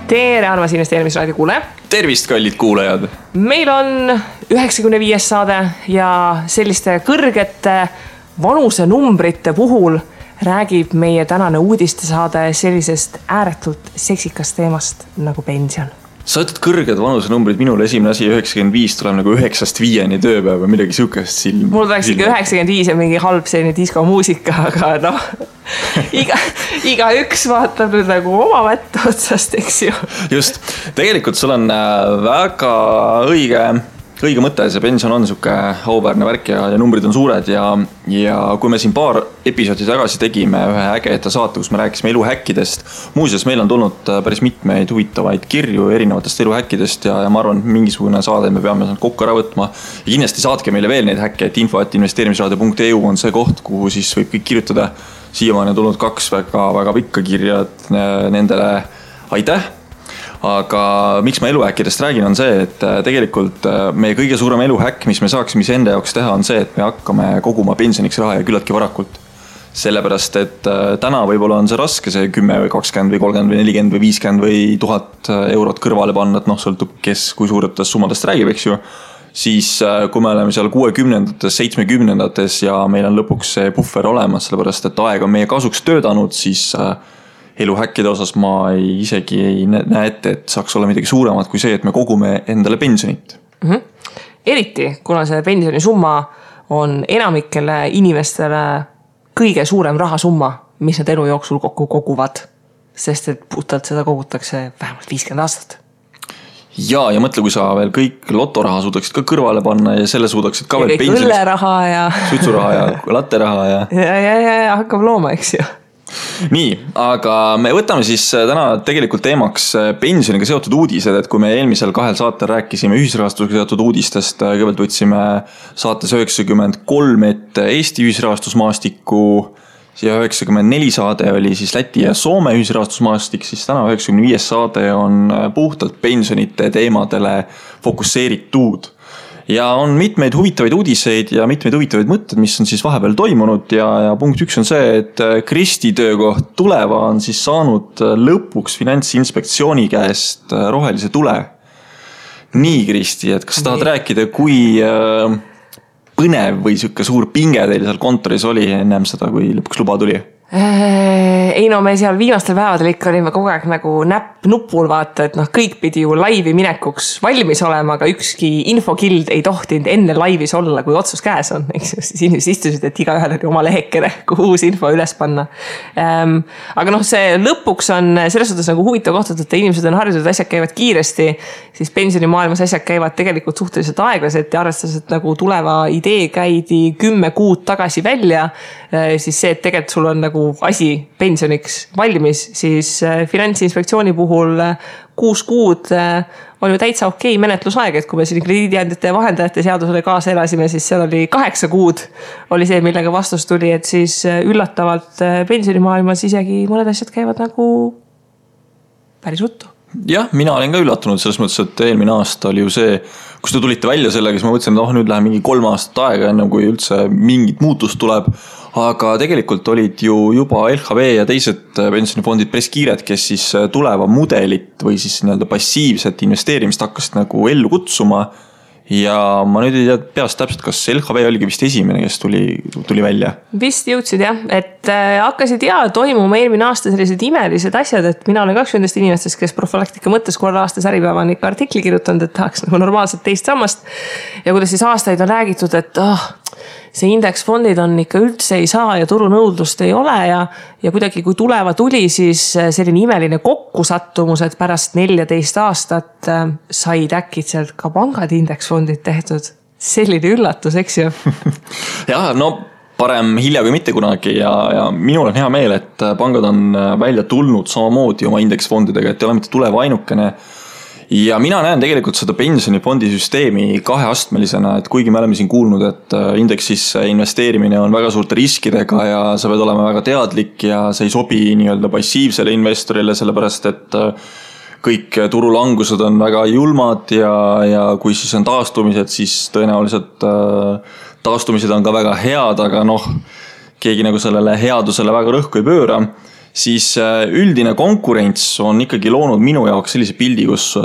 Tere, armas investeerimisraadio kuule. Tervist, kallid kuulajad. Meil on 95. saade ja selliste kõrgete vanusenumbrite puhul räägib meie tänane uudistesaade sellisest ääretult seksikast teemast nagu pension. Sa ütled kõrged vanusenumbrid, minul esimene asi 95 tuleb nagu 9-5 tööpäev või midagi sihukest silm. Mul tuleks ikka 95 ja mingi halb selline diskomuusika, aga noh, iga üks vaatab nüüd nagu oma mätta otsast, eks ju. Just, tegelikult sul on väga õige mõte, see pension on sihuke auväärne värk ja numbrid on suured ja kui me siin paar episoodi tagasi tegime ühe ägeda saate, kus me rääkisime eluhäkkidest, muuseas meil on tulnud päris mitmeid huvitavaid kirju erinevatest eluhäkkidest ja ma arvan, et mingisugune saade me peame kokku ära võtma ja kindlasti saatke meile veel neid häkke, et info@investeerimisradio.eu on see koht, kuhu siis võib kõik kirjutada. Siiamaani on tulnud 2 väga pikka kirja, et nendele aitäh. Aga miks ma eluhäkkidest räägin on see, et tegelikult meie kõige suurem eluhäkk, mis me saaksime enda jaoks teha, on see, et me hakkame koguma pensioniks raha ja küllaltki varakult. Sellepärast, et täna võib-olla on see raske, see 10 või 20 või 30 või 40 või 50 või 1000 eurot kõrvale panna, et noh, sõltub kes kui suuretest summadest räägib, eks ju. Siis kui me oleme seal 60-ndates, 70-ndates ja meil on lõpuks see puffer olemas, sellepärast, et aeg on meie kasuks töötanud, siis eluhäkkide osas ma isegi ei näe ette, et saaks olla midagi suuremat kui see, et me kogume endale pensionit. Eriti, kuna see pensionisumma on enamikele inimestele kõige suurem rahasumma, mis nad elu jooksul kokku koguvad, sest et puhtalt seda kogutakse vähemalt 50 aastat. Ja mõtle, kui sa veel kõik lotoraha suudaksid ka kõrvale panna ja selle suudaksid ka veel pensionist. Õlleraha ja suitsuraha ja latteraha ja hakkab looma, eks ju. Nii, aga me võtame siis täna tegelikult teemaks pensioniga seotud uudised, et kui me eelmisel 2 saatel rääkisime ühisrahastusega seotud uudistest, kõigepealt võtsime saates 93 ette Eesti ühisrahastusmaastikku ja 94 saade oli siis Läti ja Soome ühisrahastusmaastik, siis täna 95 saade on puhtalt pensionite teemadele fokusseeritud. Ja on mitmeid huvitavaid uudiseid ja mitmeid huvitavaid mõtted, mis on siis vahepeal toimunud ja punkt 1 on see, et Kristi töökoht Tuleva on siis saanud lõpuks Finantsinspektsiooni käest rohelise tule. Nii, Kristi, et kas tahad rääkida, kui põnev või siuke suur pinge teil seal kontoris oli ennem seda, kui lõpuks luba tuli? Ei no me seal viimastel päevadel ikka olime kogu aeg nagu näpp nupul vaata, et noh, kõik pidi ju laivi minekuks valmis olema, aga ükski infokild ei tohtinud enne laivis olla, kui otsus käes on. Siis inimesed istusid, et igaühel oli oma lehekene, kuhu uus info üles panna. Aga noh, see lõpuks on selles suhtes nagu huvitav koht, et inimesed on harjunud, asjad käivad kiiresti, siis pensionimaailmas asjad käivad tegelikult suhteliselt aeglaselt ja arvestades, et nagu Tuleva idee käidi 10 kuud tagasi välja, siis see, et tegelikult sul on nagu asi pensioniks valmis, siis Finantsinspektsiooni puhul 6 kuud on ju täitsa okei menetlusaeg, et kui me siin krediidiandjate ja vahendajate seadusele kaasa elasime, siis seal oli 8 kuud oli see, millega vastus tuli, et siis üllatavalt pensionimaailmas isegi mõned asjad käivad nagu päris ruttu. Jah, mina olen ka üllatunud selles mõttes, et eelmine aasta oli ju see, kus te tulite välja sellega, siis ma mõtlesin, et nüüd läheb mingi 3 aastat aega enne, kui üldse mingit muutust tuleb. Aga tegelikult olid ju juba LHV ja teised pensionifondid päris kiired, kes siis Tuleva mudelit või siis nii-öelda passiivset investeerimist hakkasid nagu ellu kutsuma. Ja ma nüüd ei tea peast täpselt, kas LHV oligi vist esimene, kes tuli välja? Vist jõudsid jah, et hakkasid toimuma eelmine aasta sellised imelised asjad, et mina olen 2 nendest inimestest, kes profülaktika mõttes korra aastas Äripäeva on ikka artikli kirjutanud, et tahaks nagu normaalselt teist sammast ja kuidas siis aastaid on räägitud, et see indeksfondid on ikka üldse ei saa ja turunõudlust ei ole ja kuidagi kui Tuleva tuli, siis selline imeline kokkusattumus, et pärast 14 aastat said äkitselt ka pangad indeksfondid tehtud. Selline üllatus, eks ju? Ja, no parem hilja kui mitte kunagi ja minul on hea meel, et pangad on välja tulnud samamoodi oma indeksfondidega, et ei ole mitte Tuleva ainukene. Ja mina näen tegelikult seda pensionifondi süsteemi 2-astmelisena, et kuigi me oleme siin kuulnud, et indeksisse investeerimine on väga suurte riskidega ja sa pead olema väga teadlik ja see ei sobi nii-öelda passiivsele investorile, sellepärast et kõik turulangused on väga julmad ja kui siis on taastumised, siis tõenäoliselt taastumised on ka väga head, aga noh, keegi nagu sellele headusele väga rõhku ei pööra. siis üldine konkurents on ikkagi loonud minu jaoks sellise pildi, kus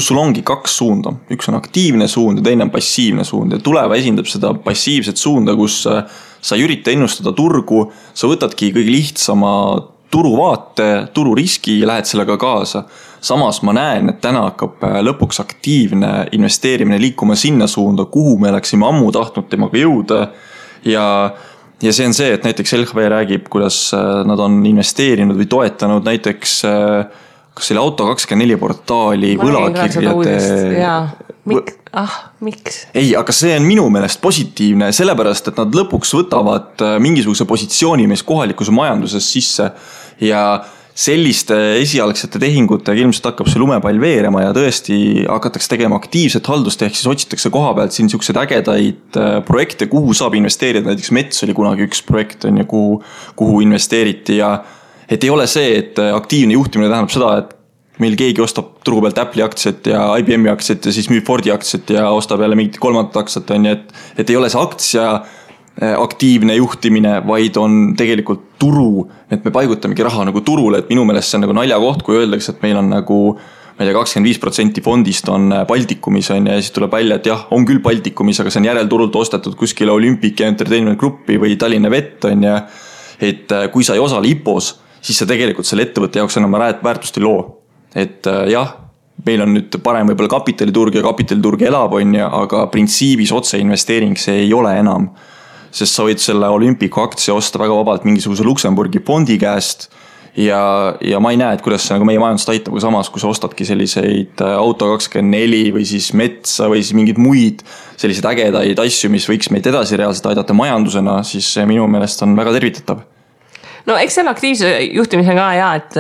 sul ongi kaks suunda. Üks on aktiivne suund ja teine on passiivne suund ja Tuleva esindab seda passiivset suunda, kus sa ei ürita ennustada turgu, sa võtadki kõige lihtsama turuvaate, tururiski ja lähed sellega kaasa. Samas ma näen, et täna hakkab lõpuks aktiivne investeerimine liikuma sinna suunda, kuhu me oleksime ammu tahtnud temaga jõuda ja see on see, et näiteks LHV räägib, kuidas nad on investeerinud või toetanud näiteks kas selle Auto24 portaali võlakirjade. Miks? Ei, aga see on minu meelest positiivne, sellepärast, et nad lõpuks võtavad mingisuguse positsiooni meis kohalikus majanduses sisse ja selliste esialgsete tehingutega ilmselt hakkab see lumepall veerema ja tõesti hakatakse tegema aktiivset haldust, ehk siis otsitakse koha pealt siin niisugused ägedaid projekte, kuhu saab investeerida, näiteks Mets oli kunagi üks projekt, kuhu investeeriti ja et ei ole see, et aktiivne juhtimine tähendab seda, et meil keegi ostab turu pealt Apple'i aktsiat ja IBM'i aktsiat ja siis müüb Fordi aktsiat ja ostab jälle mingit kolmandat aktsiat, et ei ole see aktsia aktiivne juhtimine, vaid on tegelikult turu, et me paigutamegi raha nagu turule, et minu meelest see on nagu naljakoht, kui öeldakse, et meil on nagu ma ei tea, 25% fondist on Baltikumis ja siis tuleb välja, et jah, on küll Baltikumis, aga see on järelturult ostetud kuskile Olympic Entertainment Grupi või Tallinna Vett ja et kui sa ei osale IPOs, siis sa tegelikult selle ettevõtte jaoks enam väärtust ei loo. Et jah, meil on nüüd parem võib-olla kapitaliturg ja kapitaliturg elab aga printsiibis otseinvesteering see ei ole enam. Sest sa võid selle Olympiku aktsia osta väga vabalt mingisuguse Luksemburgi fondi käest ja ma ei näe, et kuidas see nagu meie majandust aitab, kui samas, kui sa ostadki selliseid Auto24 või siis Metsa või siis mingid muid selliseid ägedaid asju, mis võiks meid edasi reaalselt aidata majandusena, siis minu meelest on väga tervitatav. No eks selle aktiivse juhtimise ka et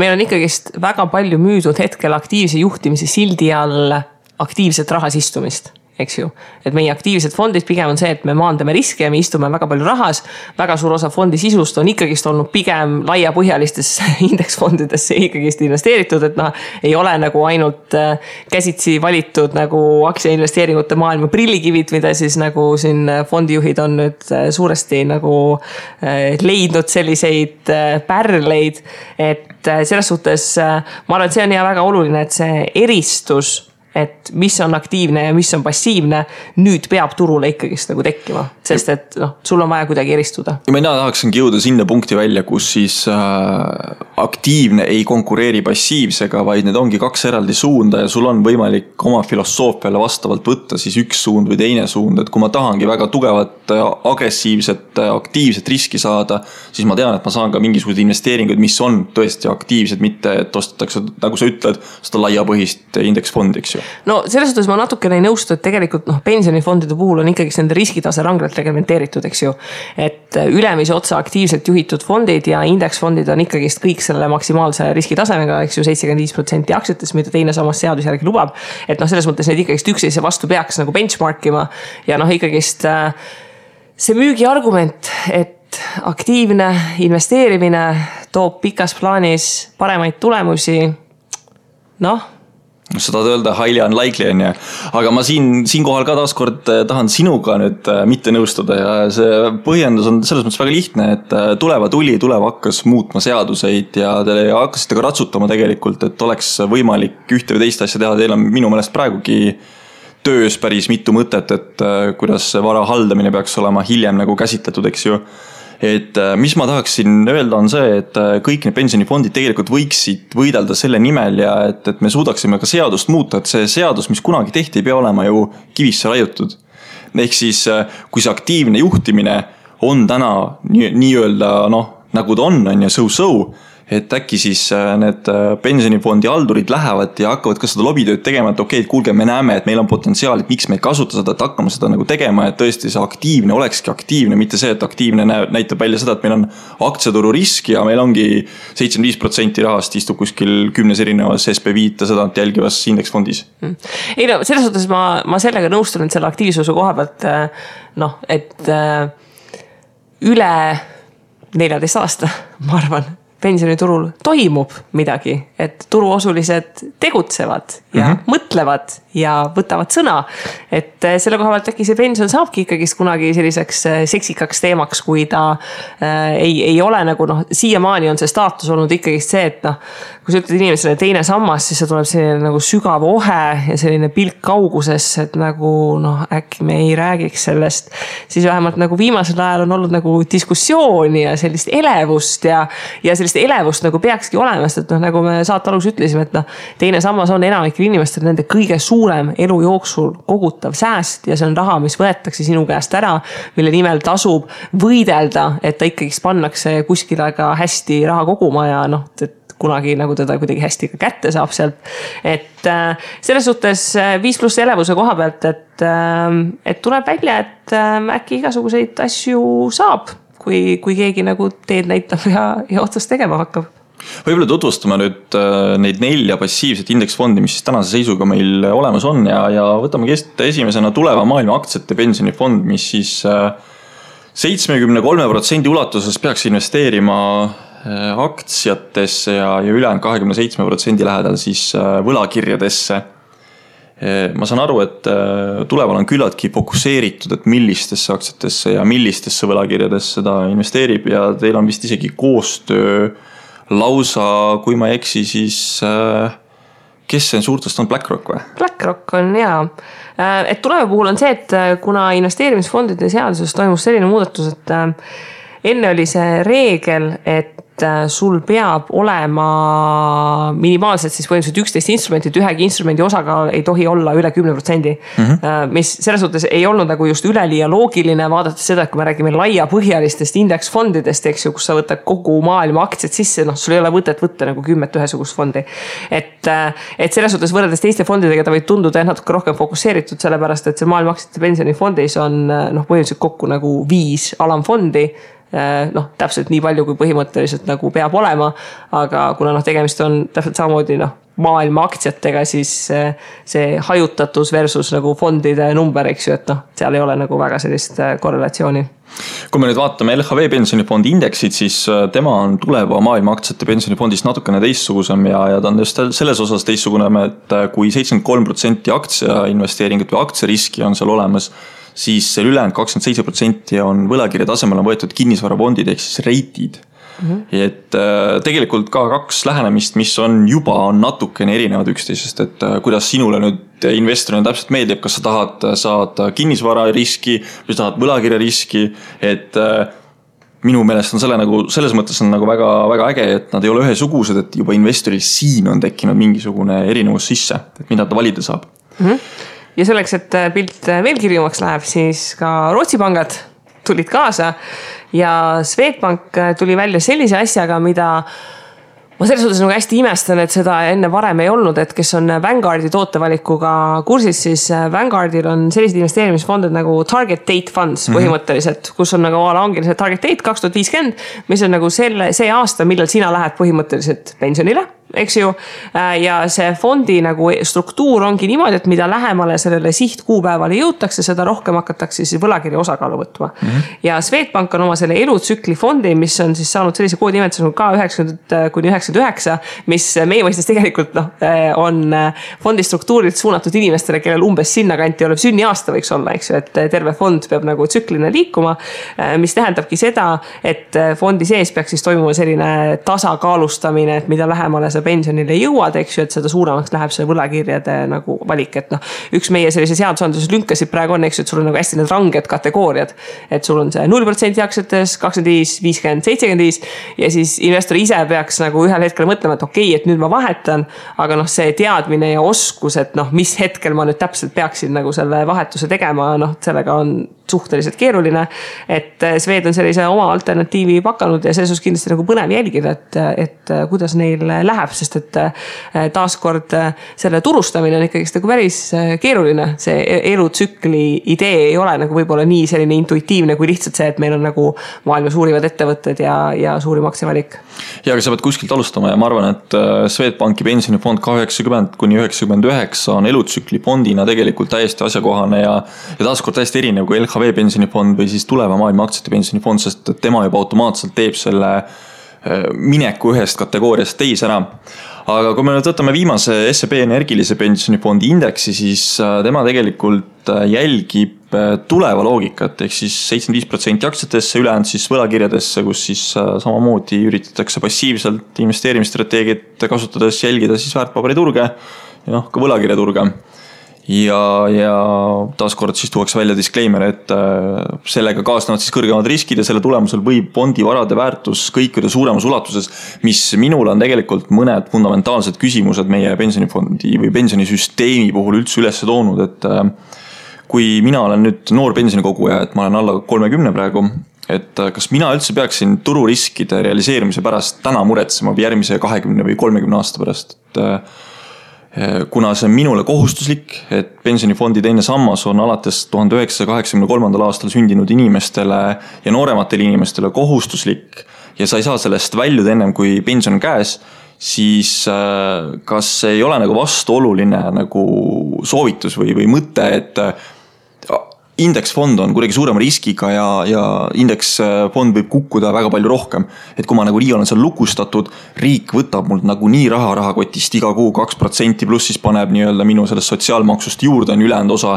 meil on ikkagist väga palju müüdud hetkel aktiivse juhtimise sildi all aktiivset rahas istumist. Eks ju, et meie aktiivsed fondid pigem on see, et me maandame riske ja me istume väga palju rahas, väga suur osa fondi sisust on ikkagist olnud pigem laiapõhjalistesse indeksfondidesse ikkagist investeeritud, et ei ole nagu ainult käsitsi valitud nagu aktsiainvesteeringute maailma prillikivid, mida siis nagu siin fondijuhid on nüüd suuresti nagu leidnud selliseid pärleid, et selles suhtes ma arvan, et see on väga oluline, et see eristus et mis on aktiivne ja mis on passiivne, nüüd peab turule ikkagist nagu tekkima, sest et sul on vaja kuidagi eristuda. Ja mina tahaksingi jõuda sinna punkti välja, kus siis aktiivne ei konkureeri passiivsega, vaid need ongi kaks eraldi suunda ja sul on võimalik oma filosoofiale vastavalt võtta siis üks suund või teine suund, et kui ma tahangi väga tugevat, agressiivset, aktiivset riski saada, siis ma tean, et ma saan ka mingisugused investeeringuid, mis on tõesti aktiivsed, mitte et ostetakse, nagu sa ütled, seda laiapõhist indeksfondi, eks ju. No selles suhtes ma natukene ei nõustu, et tegelikult pensionifondide puhul on ikkagi nende riskitase ranglalt reglementeeritud, eks ju. Et ülemise otsa aktiivselt juhitud fondid ja indeksfondid on ikkagist kõik selle maksimaalse riskitasemega, eks ju 75% aktsiates, mida teine samas seadus järgi lubab. Et selles mõttes need ikkagist üksteise vastu peaks nagu benchmarkima ja ikkagist see müügi argument, et aktiivne investeerimine toob pikas plaanis paremaid tulemusi, sa tahad öelda highly unlikely aga ma siinkohal ka taaskord tahan sinuga nüüd mitte nõustuda ja see põhjendus on selles mõttes väga lihtne, et Tuleva hakkas muutma seaduseid ja te hakkasite ka ratsutama tegelikult, et oleks võimalik ühte või teist asja teha, teil on minu meelest praegugi töös päris mitu mõtet, et kuidas vara haldamine peaks olema hiljem nagu käsitletud, eks ju. Et mis ma tahaksin öelda on see, et kõik need pensionifondid tegelikult võiksid võidelda selle nimel ja et me suudaksime ka seadust muuta, et see seadus, mis kunagi tehti, ei pea olema ju kivisse raiutud. Ehk siis, kui see aktiivne juhtimine on täna nii-öelda nagu ta on ja so-so, et äkki siis need pensionifondi haldurid lähevad ja hakkavad ka seda lobitööd tegema, et okei, kuulge, me näeme, et meil on potentsiaal, et miks me ei kasuta seda, et hakkame seda nagu tegema, et tõesti see aktiivne olekski aktiivne, mitte see, et aktiivne näitab välja seda, et meil on aktsiaturu risk ja meil ongi 75% rahast istub kuskil 10 erinevas SB5 seda jälgivas indeksfondis. Ei selles suhtes ma sellega nõustun, et selle aktiivsuse koha pealt, et üle 14 aasta, ma arvan, pensioniturul toimub midagi, et turuosulised tegutsevad ja mõtlevad ja võtavad sõna. Et selle koha pealt äkki see pension saabki ikkagist kunagi selliseks seksikaks teemaks, kui ta ei ole nagu siiamaani on see staatus olnud ikkagist see, et kui sa ütled inimesele teine sammas, siis see tuleb selline nagu sügav ohe ja selline pilk kaugusesse, et nagu äkki me ei räägiks sellest. Siis vähemalt nagu viimasel ajal on olnud nagu diskussiooni ja sellist elevust ja sellist elevust nagu peakski olema, sest et nagu me saate alus ütlesime, et teine sammas on enamikel inimestel nende kõige suurem elu jooksul kogutav sääst ja see on raha, mis võetakse sinu käest ära, mille nimel tasub võidelda, et ta ikkagist pannakse kuskile ka hästi raha koguma ja et kunagi nagu teda kuidagi hästi ka kätte saab sealt. Et selles suhtes 5+ elevuse koha pealt, et tuleb välja, et äkki igasuguseid asju saab, kui keegi nagu teed näitab ja otsast tegema hakkab. Võib-olla tutvustame nüüd neid 4 passiivset indeksfondi, mis siis tänase seisuga meil olemas on ja võtame esimesena tuleva maailma aktsiate pensionifond, mis siis 73% ulatuses peaks investeerima aktsiatesse ja ülejäänud 27% lähedal siis võlakirjadesse. Ma saan aru, et tuleval on küllaltki fokuseeritud, et millistesse aktsiatesse ja millistesse võlakirjadesse ta investeerib ja teil on vist isegi koostöö lausa, kui ma ei eksi, siis kes see suurtest on, BlackRock või? BlackRock on jaa. Et tuleva puhul on see, et kuna investeerimisfondide seaduses toimus selline muudatus, et enne oli see reegel, et sul peab olema minimaalselt siis põhimõtteliselt 11 instrumenti, et ühegi instrumendi osakaal ei tohi olla üle 10%, mis selles suhtes ei olnud nagu just üleliia loogiline, vaadates seda, et kui me räägime laiapõhjalistest indeksfondidest, eks ju, kus sa võtad kogu maailma aktsiad sisse, sul ei ole võtet võtta nagu 10 ühesugust fondi. Et selles suhtes võrreldes teiste fondidega ta võib tunduda natuke rohkem fokuseeritud, sellepärast et see maailma aktsiate pensionifondis on põhimõtteliselt kokku nagu 5 alamfondi, täpselt nii palju, kui põhimõtteliselt nagu peab olema, aga kuna tegemist on täpselt samamoodi maailma aktsiatega, siis see hajutatus versus nagu fondide number, eks ju, et seal ei ole nagu väga sellist korrelatsiooni. Kui me nüüd vaatame LHV pensionifondi indeksid, siis tema on tuleva maailma aktsiate pensionifondist natukene teistsugusem ja ta on just selles osas teistsugune, et kui 73% aktsia investeeringut või aktsiariski on seal olemas, siis ülejäänud 27% on võlakirja tasemel on võetud kinnisvarafondid ehk siis reitid. Et tegelikult ka 2 lähenemist, mis on natukene erinevad üksteisest, et kuidas sinule nüüd investorina täpselt meeldib, kas sa tahad saada kinnisvara riski või tahad võlakirja riski, et minu meelest on selles mõttes on nagu väga, väga äge, et nad ei ole ühesugused, et juba investoril siin on tekkinud mingisugune erinevus sisse, et mida ta valida saab. Ja selleks, et pilt veel kirjumaks läheb, siis ka Rootsi pangad tulid kaasa ja Swedbank tuli välja sellise asjaga, mida ma selles suhtes nagu hästi imestan, et seda enne varem ei olnud, et kes on Vanguardi tootevalikuga kursis, siis Vanguardil on sellised investeerimisfondid nagu Target Date Funds põhimõtteliselt, kus on nagu ongi see Target Date 2050, mis on nagu see aasta, millal sina lähed põhimõtteliselt pensionile, eks ju, ja see fondi nagu struktuur ongi niimoodi, et mida lähemale sellele sihtkuupäevale jõutakse, seda rohkem hakatakse siis võlakirja osakaalu võtma. Ja Swedbank on oma selle elutsükli fondi, mis on siis saanud sellise koodimeetuse nagu K90-99, mis meie mõistes tegelikult on fondi struktuurilt suunatud inimestele, kellel umbes sinna kanti olev sünniaasta võiks olla, eks ju, et terve fond peab nagu tsüklina liikuma, mis tähendabki seda, et fondi sees peaks siis toimuma selline tasakaalustamine, et mida lähemale sa pensionile jõuad, eks ju, et seda suuremaks läheb see võlakirjade nagu valik, et üks meie sellise seadusandluses lünkasid praegu on, eks ju, et sul on nagu hästi need ranged kategooriad, et sul on see 0% aktsiates, 25, 50, 75 ja siis investor ise peaks nagu ühel hetkel mõtlema, et okei, et nüüd ma vahetan, aga see teadmine ja oskus, et mis hetkel ma nüüd täpselt peaksin nagu selle vahetuse tegema, sellega on suhteliselt keeruline, et Swed on sellise oma alternatiivi pakanud ja selles kindlasti nagu põnev jälgida, et kuidas neil läheb, sest et taaskord selle turustamine on ikkagi nagu päris keeruline. See elutsükli idee ei ole nagu võib-olla nii selline intuitiivne kui lihtsalt see, et meil on nagu maailma suurivad ettevõtted ja suurim aktsiavalik. Ja aga sa pead kuskilt alustama ja ma arvan, et Swedbanki pensionifond K90-99 on elutsükli fondina tegelikult täiesti asjakohane ja taaskord täiesti erinev kui LHV pensionifond või siis tuleva maailma aktsiate pensionifond, sest tema juba automaatselt teeb selle mineku ühest kategooriast teise ära. aga kui me nüüd võtame viimase SEB energilise pensionifondi indeksi, siis tema tegelikult jälgib tuleva loogikat, ehk siis 75% aktsiatesse, ülejäänud siis võlakirjadesse, kus siis samamoodi üritatakse passiivselt investeerimisstrateegiat kasutades jälgida siis väärtpaberiturge ja ka võlakirjaturge. Ja taaskord siis tuuakse välja disclaimer, et sellega kaasnevad siis kõrgemad riskid ja selle tulemusel võib fondivarade väärtus kõikuda suuremas ulatuses, mis minul on tegelikult mõned fundamentaalsed küsimused meie pensionifondi või pensionisüsteemi puhul üldse üles toonud, et kui mina olen nüüd noor pensionikoguja, et ma olen alla 30 praegu, et kas mina üldse peaksin tururiskide realiseerimise pärast täna muretsema või järgmise 20 või 30 aasta pärast, kuna see on minule kohustuslik, et pensionifondi teine sammas on alates 1983. aastal sündinud inimestele ja noorematele inimestele kohustuslik ja sa ei saa sellest väljuda ennem kui pension on käes, siis kas ei ole nagu vastuoluline nagu soovitus või mõte, et indeksfond on kuidagi suurema riskiga ja indeksfond võib kukkuda väga palju rohkem. Et kui ma nagu nii olen seal lukustatud, riik võtab mult nagu nii rahakotist iga kuu 2% pluss siis paneb nii-öelda minu sellest sotsiaalmaksust juurde on ülejäänud osa.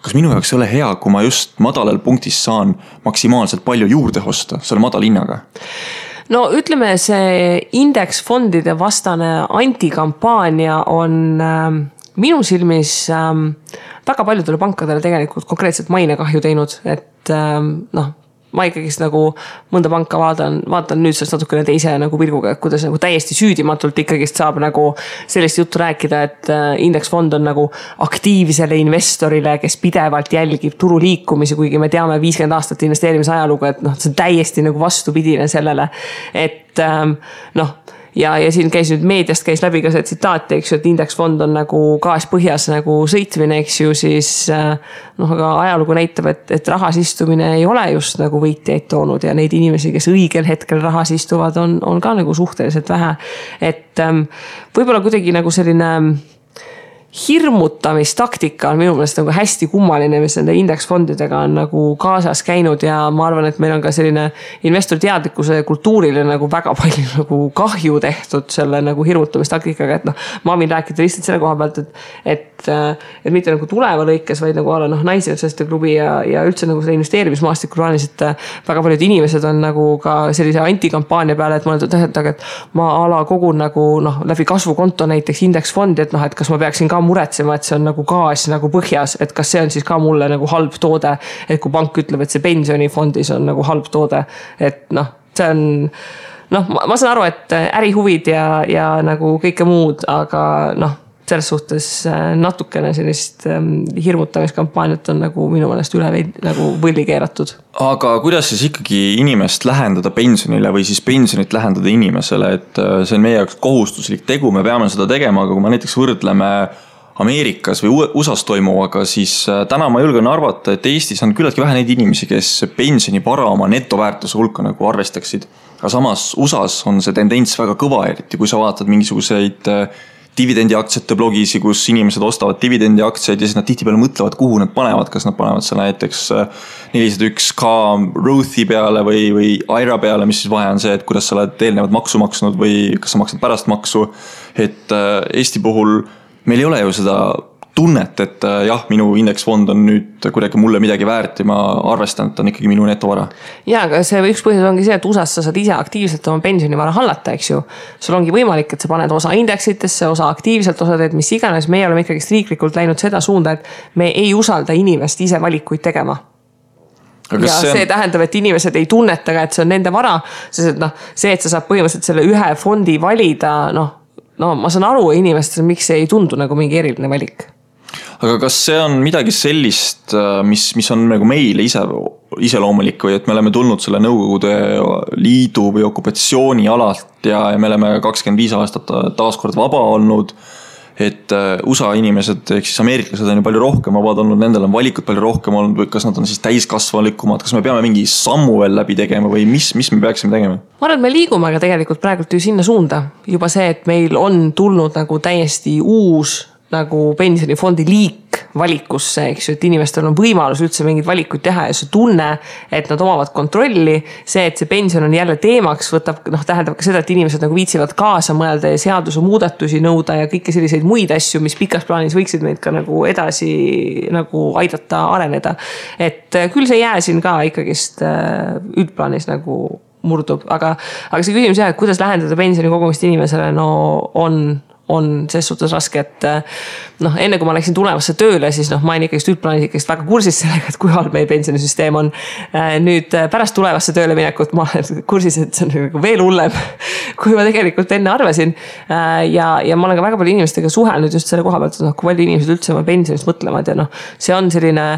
Kas minu jaoks ei ole hea, kui ma just madalal punktis saan maksimaalselt palju juurde osta selle madala hinnaga? No ütleme, see indeksfondide vastane antikampaania on minu silmis väga paljudele pankadele tegelikult konkreetselt mainekahju teinud, et ma ikkagist nagu mõnda panka vaatan nüüd sellest natukene teise nagu pilguga, et kuidas nagu täiesti süüdimatult ikkagist saab nagu sellist juttu rääkida, et indeksfond on nagu aktiivsele investorile, kes pidevalt jälgib turu liikumisi, kuigi me teame 50 aastat investeerimise ajalugu, et see on täiesti nagu vastupidine sellele, et ja siin käis nüüd meediast käis läbi ka see tsitaat, eks ju, et indeksfond on nagu gaas põhjas nagu sõitmine, eks ju, siis aga ajalugu näitab, et rahas istumine ei ole just nagu võitjaid toonud ja neid inimesi, kes õigel hetkel rahas istuvad, on ka nagu suhteliselt vähe. Et võib-olla kuidagi nagu selline hirmutamistaktika on minu meelest nagu hästi kummaline, mis nende indeksfondidega on nagu kaasas käinud ja ma arvan, et meil on ka selline investor teadlikkuse kultuurile nagu väga palju nagu kahju tehtud selle nagu hirmutamistaktikaga, et ma võin rääkida lihtsalt selle koha pealt, et mitte nagu tuleva lõikes, vaid nagu alla naisjõudsaste klubi ja üldse nagu selle investeerimismaastikul plaanis, et väga paljud inimesed on nagu ka sellise antikampaania peale, et ma olen tähendab, et ma ala kogun nagu läbi kasvukonto näiteks indeksfondi, et kas ma peaksin ka muretsema, et see on nagu gaas nagu põhjas, et kas see on siis ka mulle nagu halb toode, et kui pank ütleb, et see pensionifondis on nagu halb toode, et see on ma saan aru, et ärihuvid ja nagu kõike muud, aga selles suhtes natukene sellist hirmutamiskampaaniat on nagu minu meelest üle nagu võlli keeratud. Aga kuidas siis ikkagi inimest lähendada pensionile või siis pensionit lähendada inimesele, et see on meie jaoks kohustuslik tegu, me peame seda tegema, aga kui me näiteks võrdleme Ameerikas või USAs toimuvaga, siis täna ma julgen arvata, et Eestis on küllaltki vähe neid inimesi, kes pensionivara oma netoväärtuse hulka nagu arvestaksid. Aga samas USAs on see tendents väga kõva, eriti kui sa vaatad mingisuguseid dividendiaktsiate blogisi, kus inimesed ostavad dividendiaktsiaid ja siis nad tihtipeale mõtlevad, kuhu nad panevad, kas nad panevad selle näiteks 401k Rothi peale või IRA peale, mis siis vahe on see, et kuidas sa oled eelnevad maksu maksnud või kas sa maksad pärast maksu. Et Eesti puhul meil ei ole ju seda tunnet, et jah, minu indeksfond on nüüd kuidagi mulle midagi väärt ja ma arvestan, et on ikkagi minu netovara. Ja, aga see üks põhjus ongi see, et USAs sa saad ise aktiivselt oma pensionivara hallata, eks ju. Sul ongi võimalik, et sa paned osa indeksitesse, osa aktiivselt, osa teed mis iganes. Meie oleme ikkagi riiklikult läinud seda suunda, et me ei usalda inimest ise valikuid tegema. Ja see tähendab, et inimesed ei tunnetaga, et see on nende vara, sest et see, et sa saad põhimõtteliselt selle ühe fondi valida, ma saan aru inimestel, miks see ei tundu nagu mingi eriline valik. Aga kas see on midagi sellist, mis on nagu meile iseloomulik või et me oleme tulnud selle Nõukogude Liidu või okupatsiooni alalt ja me oleme 25 aastat taaskord vaba olnud, et USA inimesed, ehk siis ameeriklased on ju palju rohkem vabad olnud, nendel on valikud palju rohkem olnud või kas nad on siis täiskasvalikumad, kas me peame mingi sammu veel läbi tegema või mis me peaksime tegema? Ma arvan, et me liigume aga tegelikult praegult ju sinna suunda. Juba see, et meil on tulnud nagu täiesti uus nagu pensionifondi liik, valikusse, eks ju, et inimestel on võimalus üldse mingeid valikuid teha ja see tunne, et nad omavad kontrolli, see, et see pension on jälle teemaks, võtab, tähendab ka seda, et inimesed nagu viitsivad kaasa mõelda ja seaduse muudatusi nõuda ja kõiki selliseid muid asju, mis pikas plaanis võiksid meid ka nagu edasi nagu aidata areneda. Et küll see jää siin ka ikkagist üldplaanis nagu murdub, aga see küsimus jah, et kuidas lähendada pensioni kogumist inimesele, no on ses suhtes raske, et enne kui ma läksin tulevasse tööle, siis ma olin ikkagist üldplaanis ikkagist väga kursis sellega, et kui halb meie pensionisüsteem on. Nüüd pärast tulevasse tööle minekut ma olen kursis, et see on veel hullem, kui ma tegelikult enne arvasin. Ja ma olen ka väga palju inimestega suhelnud just selle koha pealt, et kui palju inimesed üldse oma pensionist mõtlevad ja see on selline,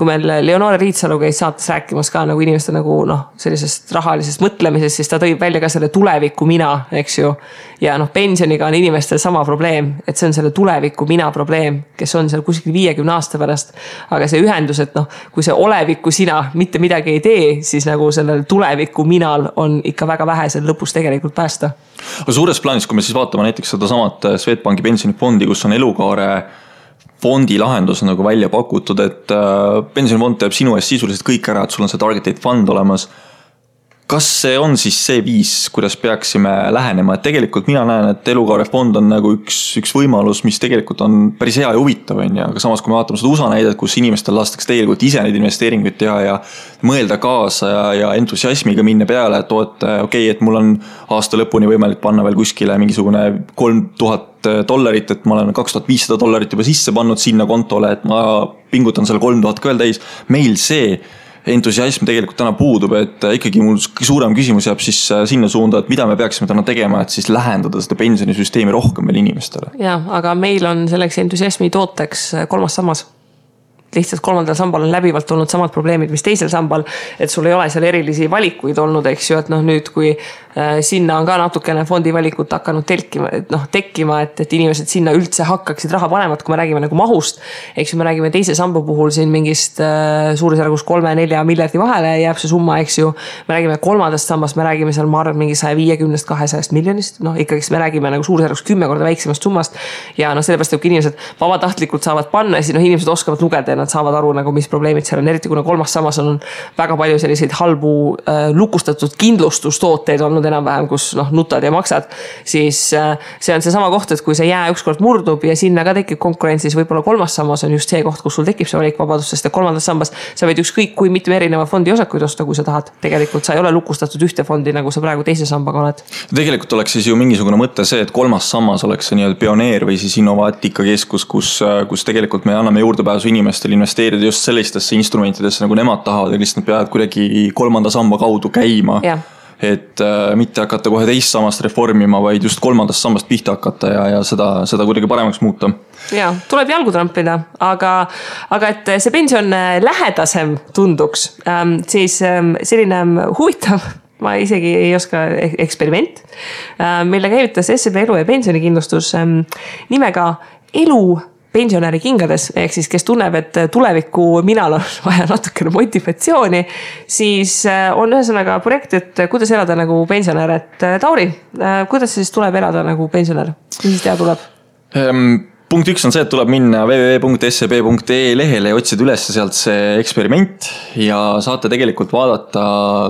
kui meil Leonore Riitsalu käis saates rääkimas ka nagu inimeste nagu sellisest rahalisest mõtlemisest, siis ta tõi välja ka selle tuleviku mina, eks ju. Ja pensioniga on inimestel sama probleem, et see on selle tuleviku mina probleem, kes on seal kuskil 50 aasta pärast. Aga see ühendus, et kui see oleviku sina mitte midagi ei tee, siis nagu sellel tuleviku minal on ikka väga vähe seal lõpus tegelikult päästa. Aga suures plaanis, kui me siis vaatame näiteks seda samat Swedbanki pensionifondi, kus on elukaare fondi lahendus nagu välja pakutud, et pensionifond teeb sinu eest sisuliselt kõik ära, et sul on see target date fund olemas. Kas see on siis see viis, kuidas peaksime lähenema? Et tegelikult mina näen, et elukaarefond on nagu üks võimalus, mis tegelikult on päris hea ja huvitav. Aga samas, kui me vaatame seda USA näidet, kus inimestel lastakse tegelikult ise neid investeeringuid teha ja mõelda kaasa ja entusiasmiga minna peale, et et mul on aasta lõpuni võimalik panna veel kuskile mingisugune $3,000, et ma olen $2,500 juba sisse pannud sinna kontole, et ma pingutan selle 3,000 ka veel täis. Meil see entusiasm tegelikult täna puudub, et ikkagi mul suurem küsimus jääb siis sinna suunda, et mida me peaksime täna tegema, et siis lähendada seda pensionisüsteemi rohkem veel inimestele. Ja, aga meil on selleks entusiasmi tooteks 3. sammas. Lihtsalt 3. sambal on läbivalt olnud samad probleemid, mis teisel sambal, et sul ei ole seal erilisi valikuid olnud, eks ju, et nüüd kui sinna on ka natukene fondi valikut hakanud tekkima, et inimesed sinna üldse hakkaksid raha panemat, kui me räägime nagu mahust, eks ju, me räägime teise samba puhul siin mingist suurusjärgus 3-4 miljardi vahele jääb see summa, eks ju, me räägime 3. sambast, me räägime seal, ma arvan, mingi 150-200 miljonist, ikkagist me räägime nagu suurusjärgus 10 korda väiksemast summast ja sellepärast, et kui inimesed vabatahtlikult saavad panna, siis inimesed oskavad lugeda ja nad saavad aru, nagu, mis probleemid seal on, eriti kuna 3. sammas on väga palju selliseid halbu lukustatud kindlustustooteid olnud enam-vähem, kus nutad ja maksad, siis see on see sama koht, et kui see jää ükskord murdub ja sinna ka tekib konkurentsis, võib-olla 3. sammas on just see koht, kus sul tekib see valikvabadus, sest 3. sambas sa võid ükskõik kui mitme erineva fondi osakuid osta, kui sa tahad. Tegelikult sa ei ole lukustatud ühte fondi, nagu sa praegu teise sambaga oled. Tegelikult oleks siis ju mingisugune mõte see, et 3. sammas oleks see nii-öelda pioneer või siis innovaatikakeskus, kus tegelikult me anname juurdepääsu inimestel investeerida just sellistesse instrumentidesse, nagu nemad tahavad ja lihtsalt peavad kuidagi 3. samba kaudu käima. Ja. Et mitte hakata kohe teist sammast reformima, vaid just 3. sambast pihta hakata ja seda kuidagi paremaks muuta. Ja, tuleb jalgu trampida, aga et see pension lähedasem tunduks, siis selline huvitav, ma isegi ei oska eksperiment, mille käivitas SEB elu- ja pensionikindlustus nimega elu pensionäri kingades, ehk siis kes tunneb, et tuleviku minal on vaja natukene motivatsiooni, siis on ühesõnaga projekt, et kuidas elada nagu pensionär. Et Tauri, kuidas siis tuleb elada nagu pensionär? Mis siis teha tuleb? Punkt 1 on see, et tuleb minna www.seb.ee lehele ja otsida üles sealt see eksperiment ja saate tegelikult vaadata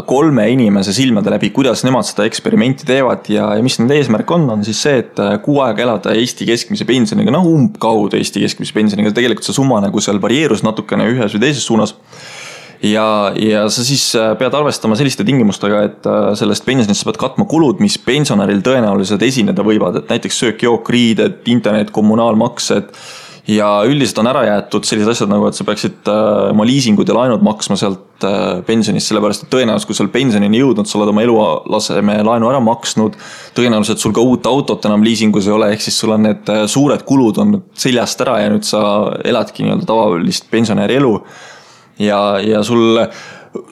3 inimese silmade läbi, kuidas nemad seda eksperimenti teevad ja mis nende eesmärk on siis see, et 6 aega elada Eesti keskmise pensioniga, umbkaudu Eesti keskmise pensioniga, tegelikult see summa nagu seal varieerus natukene ühes või teises suunas. Ja sa siis pead arvestama selliste tingimustega, et sellest pensionist sa pead katma kulud, mis pensionäril tõenäoliselt esineda võivad, et näiteks söök, jook, riided, internet, kommunaalmaksed ja üldiselt on ära jäetud sellised asjad nagu, et sa peaksid oma liisingud ja laenud maksma sealt pensionist, sellepärast et tõenäoliselt, kui sul pensionini jõudnud, sa oled oma elulaseme laenu ära maksnud, tõenäoliselt sul ka uut autot enam liisingus ei ole, ehk siis sul on need suured kulud on seljast ära ja nüüd sa eladki nii-öelda tavalist pensionäri elu. Ja sul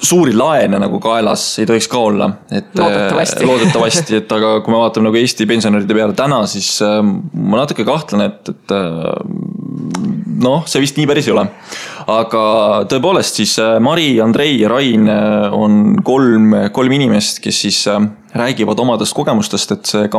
suuri laene nagu kaelas ei tohiks ka olla. Et, loodetavasti, et aga kui me vaatame nagu Eesti pensionäride peale täna, siis ma natuke kahtlen, et noh, see vist nii päris ei ole. Aga tõepoolest siis Mari, Andrei ja Rain on kolm inimest, kes siis räägivad omadest kogemustest, et see